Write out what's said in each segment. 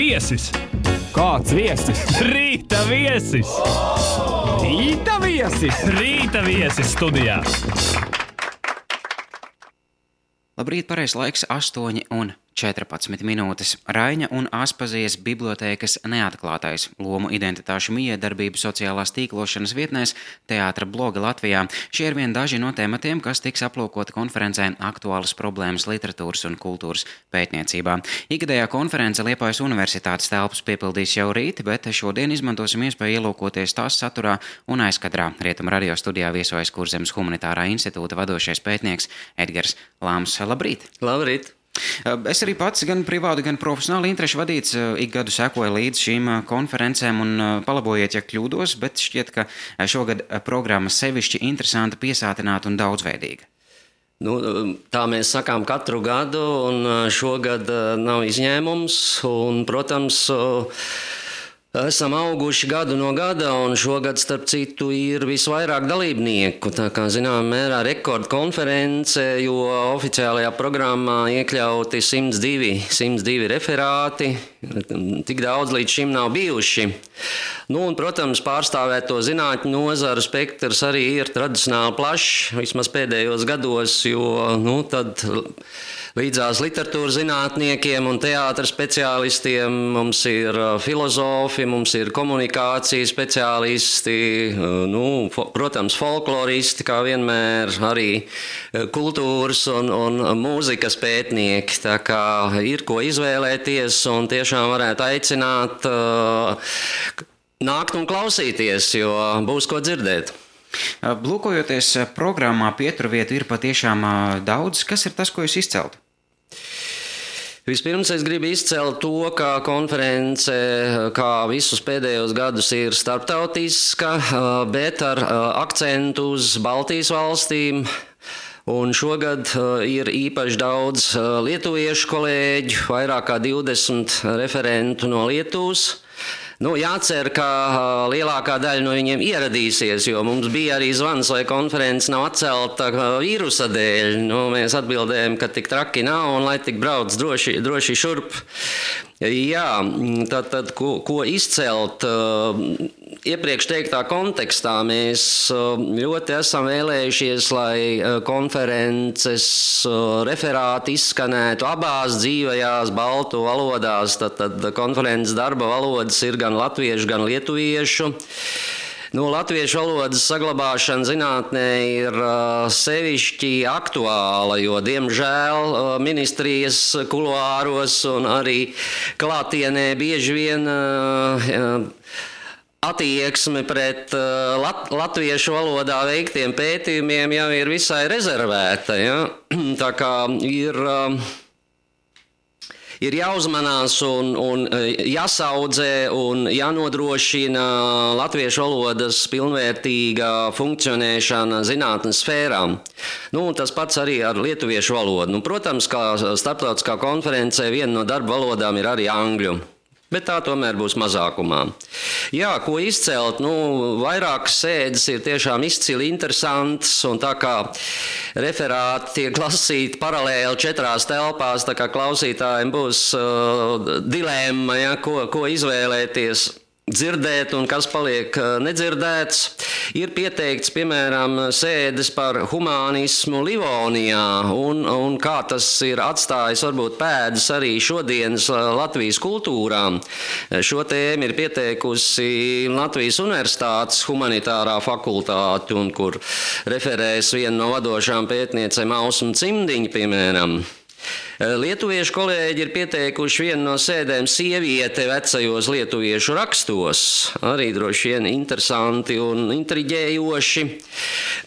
Viesis! Kāds viesis? Rīta viesis! Rīta viesis! Rīta viesis studijā! Labrīt, pareizs laiks 8:14 minūtes. Raiņa un Aspazijas bibliotēkas neatklātais lomu identitāšu mijiedarbību sociālās tīklošanas vietnēs Teātra bloga Latvijā. Šie ir vien daži no tematiem, kas tiks aplūkoti konferencē Aktuālas problēmas literatūras un kultūras pētniecībā. Ikgadējā konference Liepājas Universitātes telpas piepildīs jau rīt, bet šodien izmantosim iespēju ielūkoties tās saturā un aizkadrā. Rietumu radio studijā viesojas Kurzemes humanitārā institūta vadošais pētnieks Edgars Lāms. Labrīt! Labrīt! Es arī pats gan privāti, gan profesionāli interešu vadīts ik gadu sekoju līdz šīm konferencēm un palabojiet, ja kļūdos, bet šķiet, ka šogad programma sevišķi interesanta, piesātināta un daudzveidīga. Tā mēs sakām katru gadu, un šogad nav izņēmums, un, protams, esam auguši gadu no gada, un šogad, starp citu, ir visvairāk dalībnieku. Tā kā, zināmā mērā, rekordkonference, jo oficiālajā programmā iekļauti 102 referāti. Tik daudz līdz šim nav bijuši. Un, protams, pārstāvēto zinātņu nozaru spektrs arī ir tradicionāli plašs, vismaz pēdējos gados, jo tad līdzās literatūras zinātniekiem un teātra speciālistiem mums ir filozofi, mums ir komunikācijas speciālisti, protams, folkloristi, kā vienmēr, arī kultūras un mūzikas pētnieki. Tā kā ir ko izvēlēties un tiešām varētu aicināt nākt un klausīties, jo būs ko dzirdēt. Lūkojoties programmā, pieturvietu ir patiešām daudz. Kas ir tas, ko jūs izceltu? Vispirms es gribu izcelt to, ka konference, kā visus pēdējos gadus, ir starptautiska, bet ar akcentu uz Baltijas valstīm. Un šogad ir īpaši daudz lietuviešu kolēģu, vairāk kā 20 referentu no Lietuvas. Jācer, ka lielākā daļa no viņiem ieradīsies, jo mums bija arī zvans, vai konference nav atcelta vīrusa dēļ. Mēs atbildējam, ka tik traki nav un lai tik brauc droši šurp. Jā, tad ko izcelt? Iepriekš teiktā kontekstā mēs ļoti esam vēlējušies, lai konferences referāti izskanētu abās dzīvajās baltu valodās. Tad konferences darba valodas ir gan latviešu, gan lietuviešu. Latviešu valodas saglabāšana zinātnē ir sevišķi aktuāla, jo, diemžēl, ministrijas kuluāros un arī klātienē bieži vien attieksme pret latviešu valodā veiktiem pētījumiem jau ir visai rezervēta. Ja? Tā kā ir jāuzmanās un jāsaudzē un jānodrošina latviešu valodas pilnvērtīga funkcionēšana zinātnes sfērām. Tas pats arī ar lietuviešu valodu. Protams, kā starptautiskā konferencē viena no darba valodām ir arī angļu. Bet tā tomēr būs mazākumā. Jā, ko izcelt? Vairākas sēdes ir tiešām izcili interesantas, un tā kā referāti tiek lasīti paralēli 4 telpās, tā kā klausītājiem būs dilemma, ja, ko izvēlēties. Dzirdēt un kas paliek nedzirdēts. Ir pieteikts, piemēram, sēdes par humānismu Livonijā un kā tas ir atstājis varbūt pēdas arī šodienas Latvijas kultūrām. Šo tēmu ir pieteikusi Latvijas Universitātes humanitārā fakultāte, un kur referēs viena no vadošām pētniecēm Ausma Cimdiņa, piemēram. Lietuviešu kolēģi ir pieteikuši vienu no sēdēm sieviete vecajos lietuviešu rakstos. Arī droši vien interesanti un intriģējoši.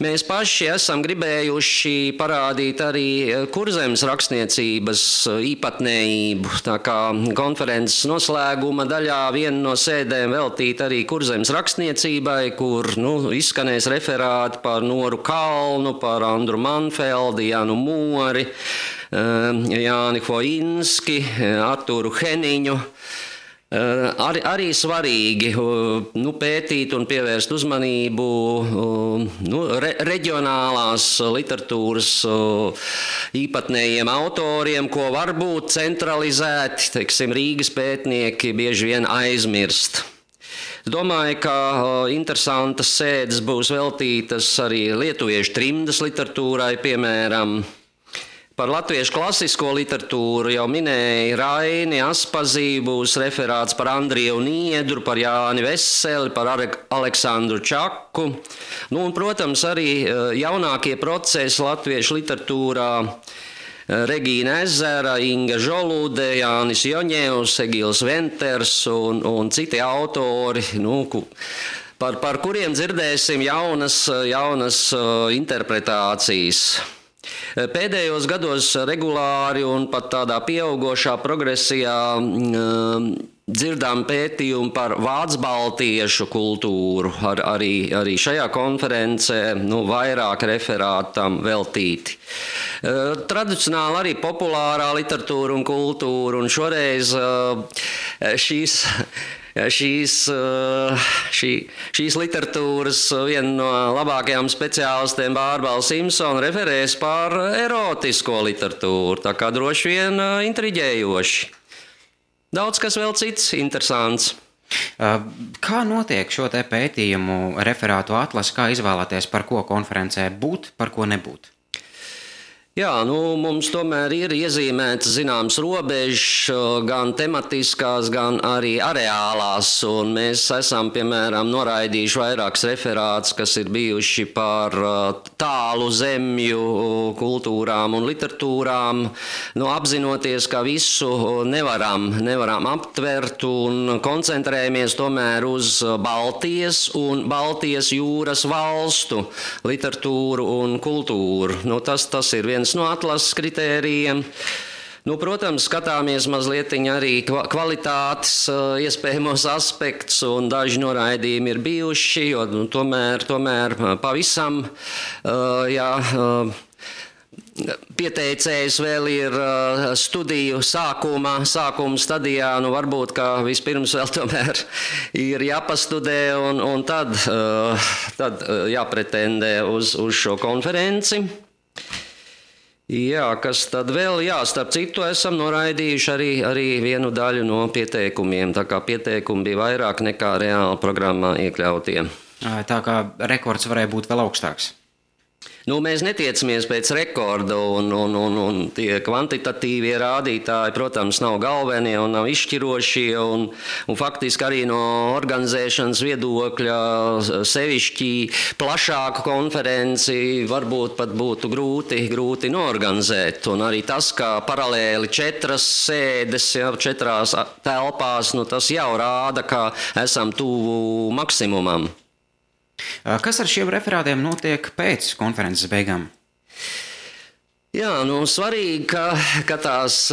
Mēs paši esam gribējuši parādīt arī Kurzemes rakstniecības īpatnējību. Tā kā konferences noslēguma daļā viena no sēdēm veltīt arī Kurzemes rakstniecībai, kur izskanēs referāti par Noru Kalnu, par Andru Manfeldi, Janu Mori, Jāni Foinski, Arturu Heniņu. Arī svarīgi pētīt un pievērst uzmanību reģionālās literatūras īpatnējiem autoriem, ko varbūt centralizēti, teiksim, Rīgas pētnieki bieži vien aizmirst. Es domāju, ka interesantas sēdes būs veltītas arī lietuviešu trimdas literatūrai, piemēram. Par latviešu klasisko literatūru jau minēja Raini Aspazī, būs referāts par Andriju Niedru, par Jāni Veseli, par Aleksandru Čaku. Un, protams, arī jaunākie procesi latviešu literatūrā Regīna Ezera, Inga Žolude, Jānis Joņevs, Egils Venters un citi autori, par kuriem dzirdēsim jaunas interpretācijas. Pēdējos gados regulāri un pat tādā pieaugošā progresijā dzirdām pētījumu par vācu-baltiešu kultūru, arī šajā konferencē vairāk referātam veltīti. Tradicionāli arī populārā literatūra un kultūra, un šoreiz šīs literatūras viena no labākajām speciālistiem Bārbala Simpsona referēs par erotisko literatūru, tā kā droši vien intriģējoši. Daudz kas vēl cits interesants. Kā notiek šo te pētījumu referātu atlasi, kā izvēlēties, par ko konferencē būt, par ko nebūt? Jā, mums tomēr ir iezīmētas zināmas robežas, gan tematiskās, gan arī areālās, un mēs esam, piemēram, noraidījuši vairākus referātus, kas ir bijuši par tālu zemju kultūrām un literatūrām, apzinoties, ka visu nevaram aptvert un koncentrējamies tomēr uz Baltijas un Baltijas jūras valstu literatūru un kultūru. Tas ir viens no atlases kritērijiem. Protams, skatāmies mazliet arī kvalitātes iespējamos aspektus, un daži noraidījumi ir bijuši, jo tomēr pavisam, pieteicējs vēl ir studiju sākuma stadijā, varbūt, ka vispirms vēl tomēr ir jāpastudē un tad jāpretendē uz šo konferenci. Jā, kas tad vēl? Jā, starp citu esam noraidījuši arī vienu daļu no pieteikumiem, tā kā pieteikumi bija vairāk nekā reāli programmā iekļautie. Tā kā rekords varēja būt vēl augstāks. Mēs netiecamies pēc rekorda, un tie kvantitatīvie rādītāji, protams, nav galvenie un nav izšķirošie, un faktiski arī no organizēšanas viedokļa sevišķi plašāku konferenci varbūt pat būtu grūti norganizēt. Un arī tas, ka paralēli 4 sēdes, 4 telpās, tas jau rāda, ka esam tuvu maksimumam. Kas ar šiem referātiem notiek pēc konferences beigām? Jā, svarīgi, ka tās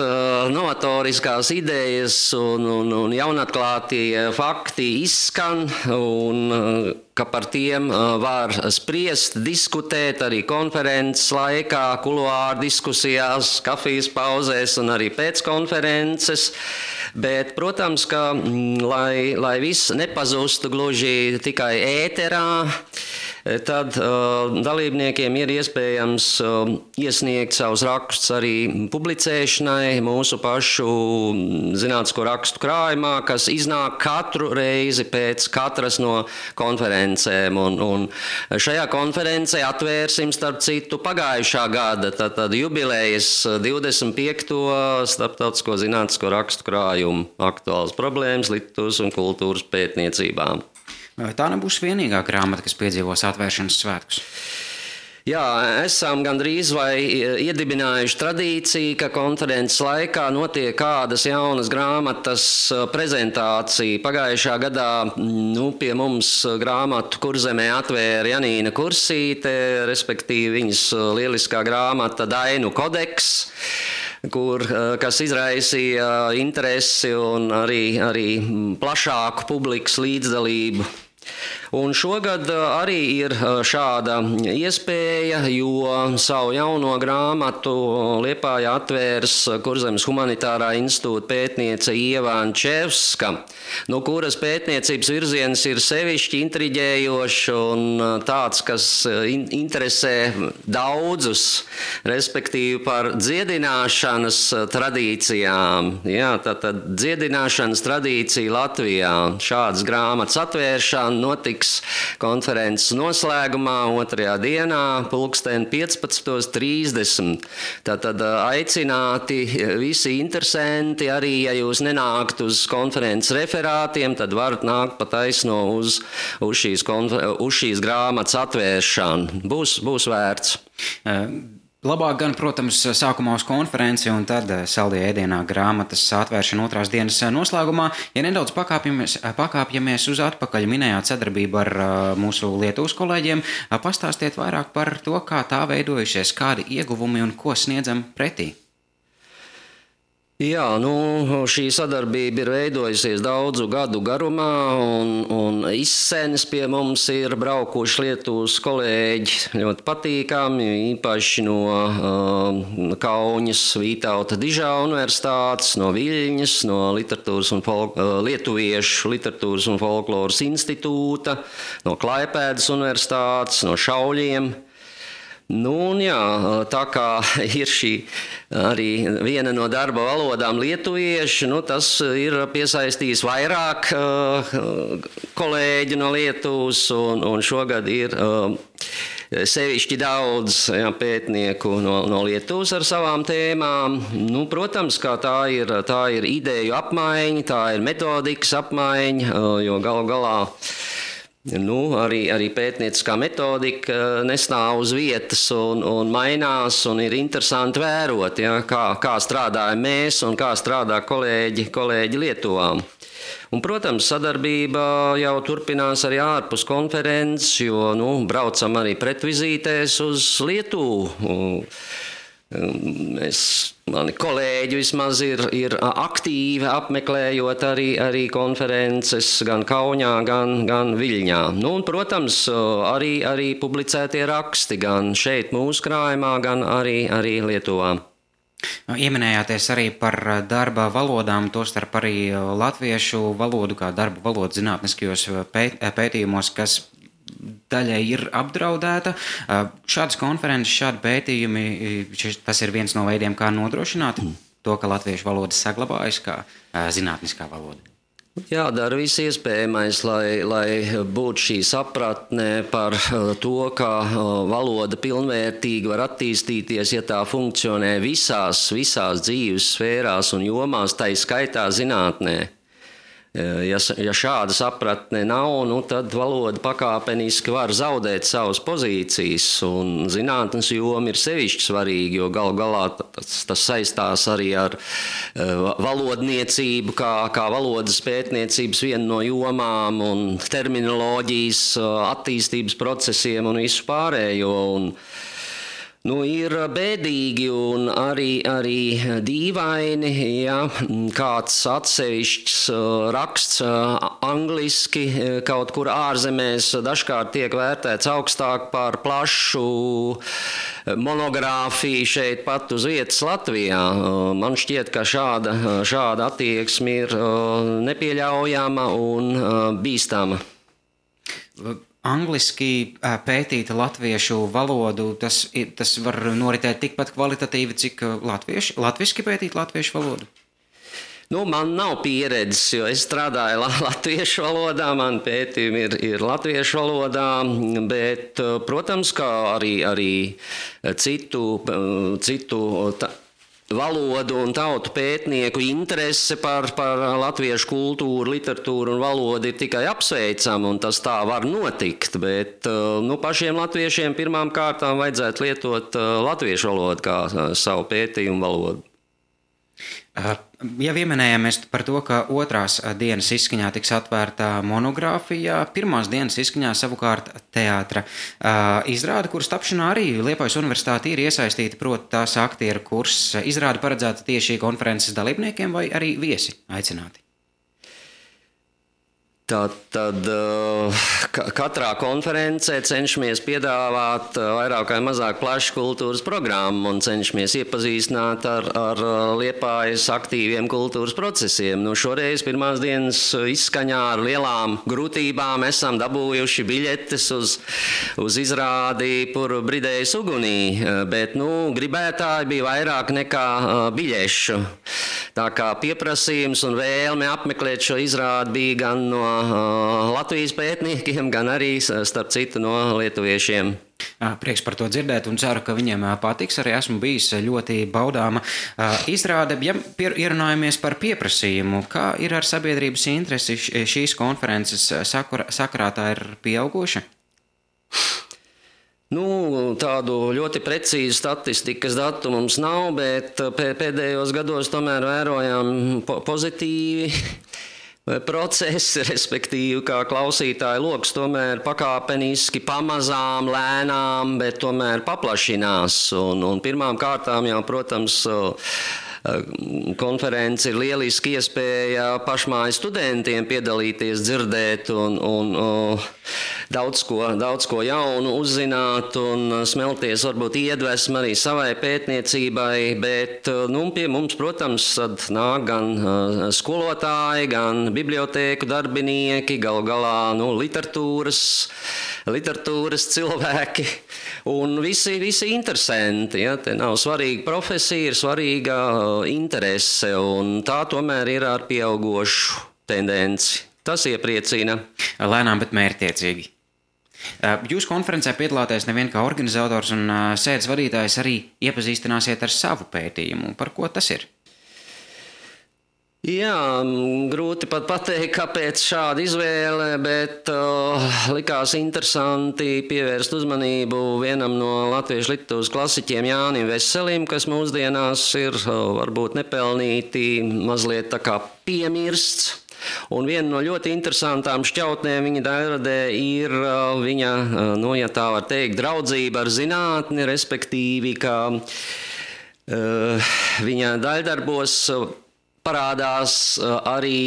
novatoriskās idejas un jaunatklātie fakti izskan, un ka par tiem var spriest, diskutēt arī konferences laikā, kuluāru diskusijās, kafijas pauzēs un arī pēc konferences. Bet, protams, ka, lai viss nepazustu gluži tikai ēterā, tad dalībniekiem ir iespējams iesniegt savus rakstus arī publicēšanai mūsu pašu zinātnisko rakstu krājumā, kas iznāk katru reizi pēc katras no konferencēm. Un šajā konferencē atvērsim, starp citu, pagājušā gada tad jubilejas 25. starptautisko zinātnisko rakstu krājumu aktuālas problēmas literatūras un kultūras pētniecībām. Tā nebūs vienīgā grāmata, kas piedzīvos atvēršanas svētkus. Jā, esam gandrīz vai iedibinājuši tradīciju, ka konferences laikā notiek kādas jaunas grāmatas prezentācija. Pagājušā gadā pie mums grāmatu Kurzemē atvēra Janīna Kursīte, respektīvi viņas lieliskā grāmata Dainu kodeks, kas izraisīja interesi un arī plašāku publikas līdzdalību. Un šogad arī ir šāda iespēja, jo savu jauno grāmatu Liepājā atvērs Kurzemes humanitārā institūta pētniece Ieva Ančevska, no kuras pētniecības virziens ir sevišķi intriģējošs un tāds, kas interesē daudzus, respektīvi par dziedināšanas tradīcijām. Jā, tātad dziedināšanas tradīcija Latvijā. Šādas grāmatas atvēršana notiks konferences noslēgumā 2. dienā, pulksten 15:30. Tātad aicināti visi interesanti, arī ja jūs nenākt uz konferences referātiem, tad varat nākt pa taisno uz šīs grāmatas atvēršanu. Būs vērts. Labāk gan, protams, sākumā uz konferenci un tad saldajā ēdienā grāmatas atvēršana 2. dienas noslēgumā. Ja nedaudz pakāpjamies uz atpakaļ, minējāt sadarbību ar mūsu Lietuvas kolēģiem, pastāstiet vairāk par to, kā tā veidojušies, kādi ieguvumi un ko sniedzam pretī. Jā, šī sadarbība ir veidojusies daudzu gadu garumā, un izsēnes pie mums ir braukuši Lietuvas kolēģi ļoti patīkami, īpaši no Kauņas Vītauta Dižā universitātes, no Viļņas, no Lietuviešu literatūras un folkloras institūta, no Klaipēdas universitātes, no Šauļiem. Tā kā ir šī arī viena no darba valodām lietuvieši, tas ir piesaistījis vairāk kolēģi no Lietuvas, un šogad ir sevišķi daudz pētnieku no Lietuvas ar savām tēmām. Protams, kā tā ir ideju apmaiņa, tā ir metodikas apmaiņa, jo galu galā arī pētnieciskā metodika nestāv uz vietas un mainās, un ir interesanti vērot, kā strādājam mēs un kā strādā kolēģi Lietuvā. Un, protams, sadarbība jau turpinās arī ārpus konferences, jo braucam arī pretvizītēs uz Lietuvu. Mani kolēģi vismaz ir aktīvi apmeklējot arī konferences gan Kauņā, gan Viļņā. Un, protams, arī publicētie raksti gan šeit mūsu krājumā, gan arī Lietuvā. Ieminējāties arī par darba valodām, tostarp arī latviešu valodu kā darba valodu zinātniskajos pētījumos, kas daļai ir apdraudēta. Šādas konferences, šādi pētījumi, tas ir viens no veidiem, kā nodrošināt to, ka latviešu valoda saglabājas kā zinātniskā valoda. Jādara viss iespējamais, lai būtu šī sapratne par to, ka valoda pilnvērtīgi var attīstīties, ja tā funkcionē visās dzīves sfērās un jomās, tai skaitā zinātnē. Ja šāda sapratne nav, tad valoda pakāpeniski var zaudēt savas pozīcijas, un zinātnes joma ir sevišķi svarīga, jo galu galā tas saistās arī ar valodniecību, kā valodas pētniecības viena no jomām, un terminoloģijas attīstības procesiem un visu pārējo. Ir bēdīgi un arī dīvaini, ja kāds atsevišķs raksts angliski kaut kur ārzemēs dažkārt tiek vērtēts augstāk par plašu monogrāfiju šeit pat uz vietas Latvijā. Man šķiet, ka šāda attieksme ir nepieļaujama un bīstama. Angliski pētīta latviešu valodu, tas var noritēt tikpat kvalitatīvi, cik latviski pētīt latviešu valodu? Man nav pieredzes, jo es strādāju latviešu valodā, man pētījumi ir latviešu valodā, bet, protams, kā arī citu valodu un tautu pētnieku interese par latviešu kultūru, literatūru un valodu ir tikai apsveicama, un tas tā var notikt, bet pašiem latviešiem pirmām kārtām vajadzētu lietot latviešu valodu kā savu pētījumu valodu. Ja pieminējāmies par to, ka 2. dienas izskaņā tiks atvērta monogrāfija, 1. dienas izskaņā savukārt teātra izrāde, kuras tapšanā arī Liepājas universitāte ir iesaistīta, proti tās aktieru kurs. Izrāde paredzēta tieši konferences dalībniekiem vai arī viesi aicināti? Tad katrā konferencē cenšamies piedāvāt vairāk vai mazāk plašu kultūras programmu un cenšamies iepazīstināt ar Liepājas aktīviem kultūras procesiem. Šoreiz pirmās dienas izskaņā ar lielām grūtībām esam dabūjuši biļetes uz izrādi Pur bridējas ugunī, bet gribētāji bija vairāk nekā biļešu. Tā kā pieprasījums un vēlme apmeklēt šo izrādi bija gan no Latvijas pētniekiem, gan arī, starp citu, no lietuviešiem. Prieks par to dzirdēt un ceru, ka viņiem patiks. Arī esmu bijis ļoti baudāma izrāde. Ja ierunājamies par pieprasījumu, kā ir ar sabiedrības interesi šīs konferences sakarā, tā ir pieauguša? Tādu ļoti precīzu statistikas datu mums nav, bet pēdējos gados tomēr vērojām pozitīvi procesi, respektīvi, kā klausītāju loks tomēr pakāpeniski, pamazām, lēnām, bet tomēr paplašinās. Un pirmām kārtām jau, protams, konference ir lieliski iespēja pašmāju studentiem piedalīties, dzirdēt un daudz ko jaunu uzzināt un smelties varbūt iedvesmu arī savai pētniecībai, bet pie mums, protams, nāk gan skolotāji, gan bibliotēku darbinieki, galu galā literatūras cilvēki un visi interesanti. Ja? Te nav svarīga profesija, ir svarīga interese, un tā tomēr ir ar pieaugošu tendenci. Tas iepriecina. Lēnām, bet mērķtiecīgi. Jūs konferencē piedalāties nevien kā organizators un sēdes vadītājs, arī iepazīstināsiet ar savu pētījumu. Par ko tas ir? Jā, grūti pat pateikt, kāpēc šāda izvēle, bet likās interesanti pievērst uzmanību vienam no latviešu literatūras klasiķiem Jānim Veselim, kas mūsdienās ir varbūt nepelnīti mazliet tā kā piemirsts. Un viena no ļoti interesantām šķautnēm viņa daļradē ir viņa, ja tā var teikt, draudzība ar zinātni, respektīvi, ka viņa daļdarbos parādās arī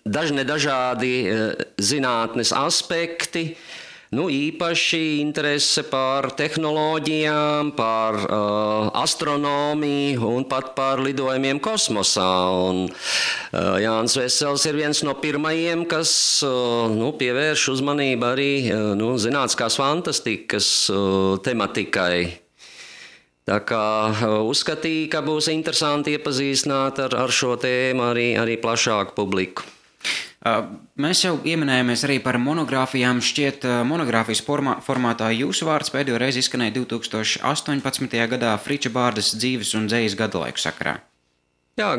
dažādi zinātnes aspekti, īpaši interese par tehnoloģijām, par astronomiju un pat par lidojumiem kosmosā. Un Jānis Vesels ir viens no pirmajiem, kas pievērš uzmanību arī zinātniskās fantastikas tematikai. Tā kā uzskatīju, ka būs interesanti iepazīstināt ar šo tēmu arī plašāku publiku. Mēs jau ieminējāmies arī par monogrāfijām. Šķiet, monogrāfijas formātā jūsu vārds pēdējo reizi izskanēja 2018. gadā Friča Bārdas dzīves un dzejas gadalaiku sakarā. Jā,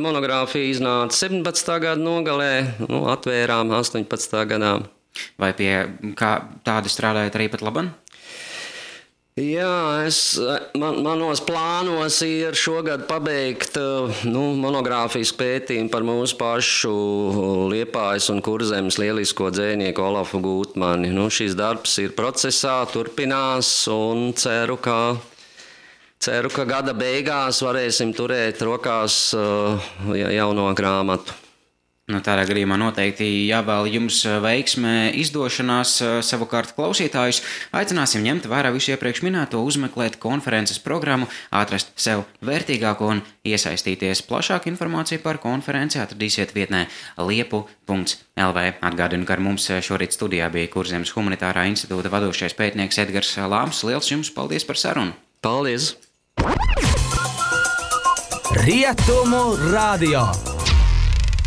monogrāfija iznāca 17. gada nogalē, atvērām 18. gadā. Vai pie kā tādi strādājat arī pat laban? Jā, manos plānos ir šogad pabeigt monogrāfijas pētījumu par mūsu pašu Liepājas un Kurzemes lielisko dzejnieku Olafu Gūtmani. Šis darbs ir procesā, turpinās un ceru, ka gada beigās varēsim turēt rokās jauno grāmatu. Tādā gadījumā noteikti jāvēl jums veiksme izdošanās. Savukārt klausītājus aicināsim ņemt vērā visu iepriekš minēto, uzmeklēt konferences programmu, atrast sev vērtīgāko un iesaistīties. Plašāku informāciju par konferenci atradīsiet vietnē liepu.lv. Atgādinu, ka ar mums šorīt studijā bija Kurzemes Humanitārā institūta vadošais pētnieks Edgars Lāms. Liels jums paldies par sarunu! Paldies! Rietumu radio!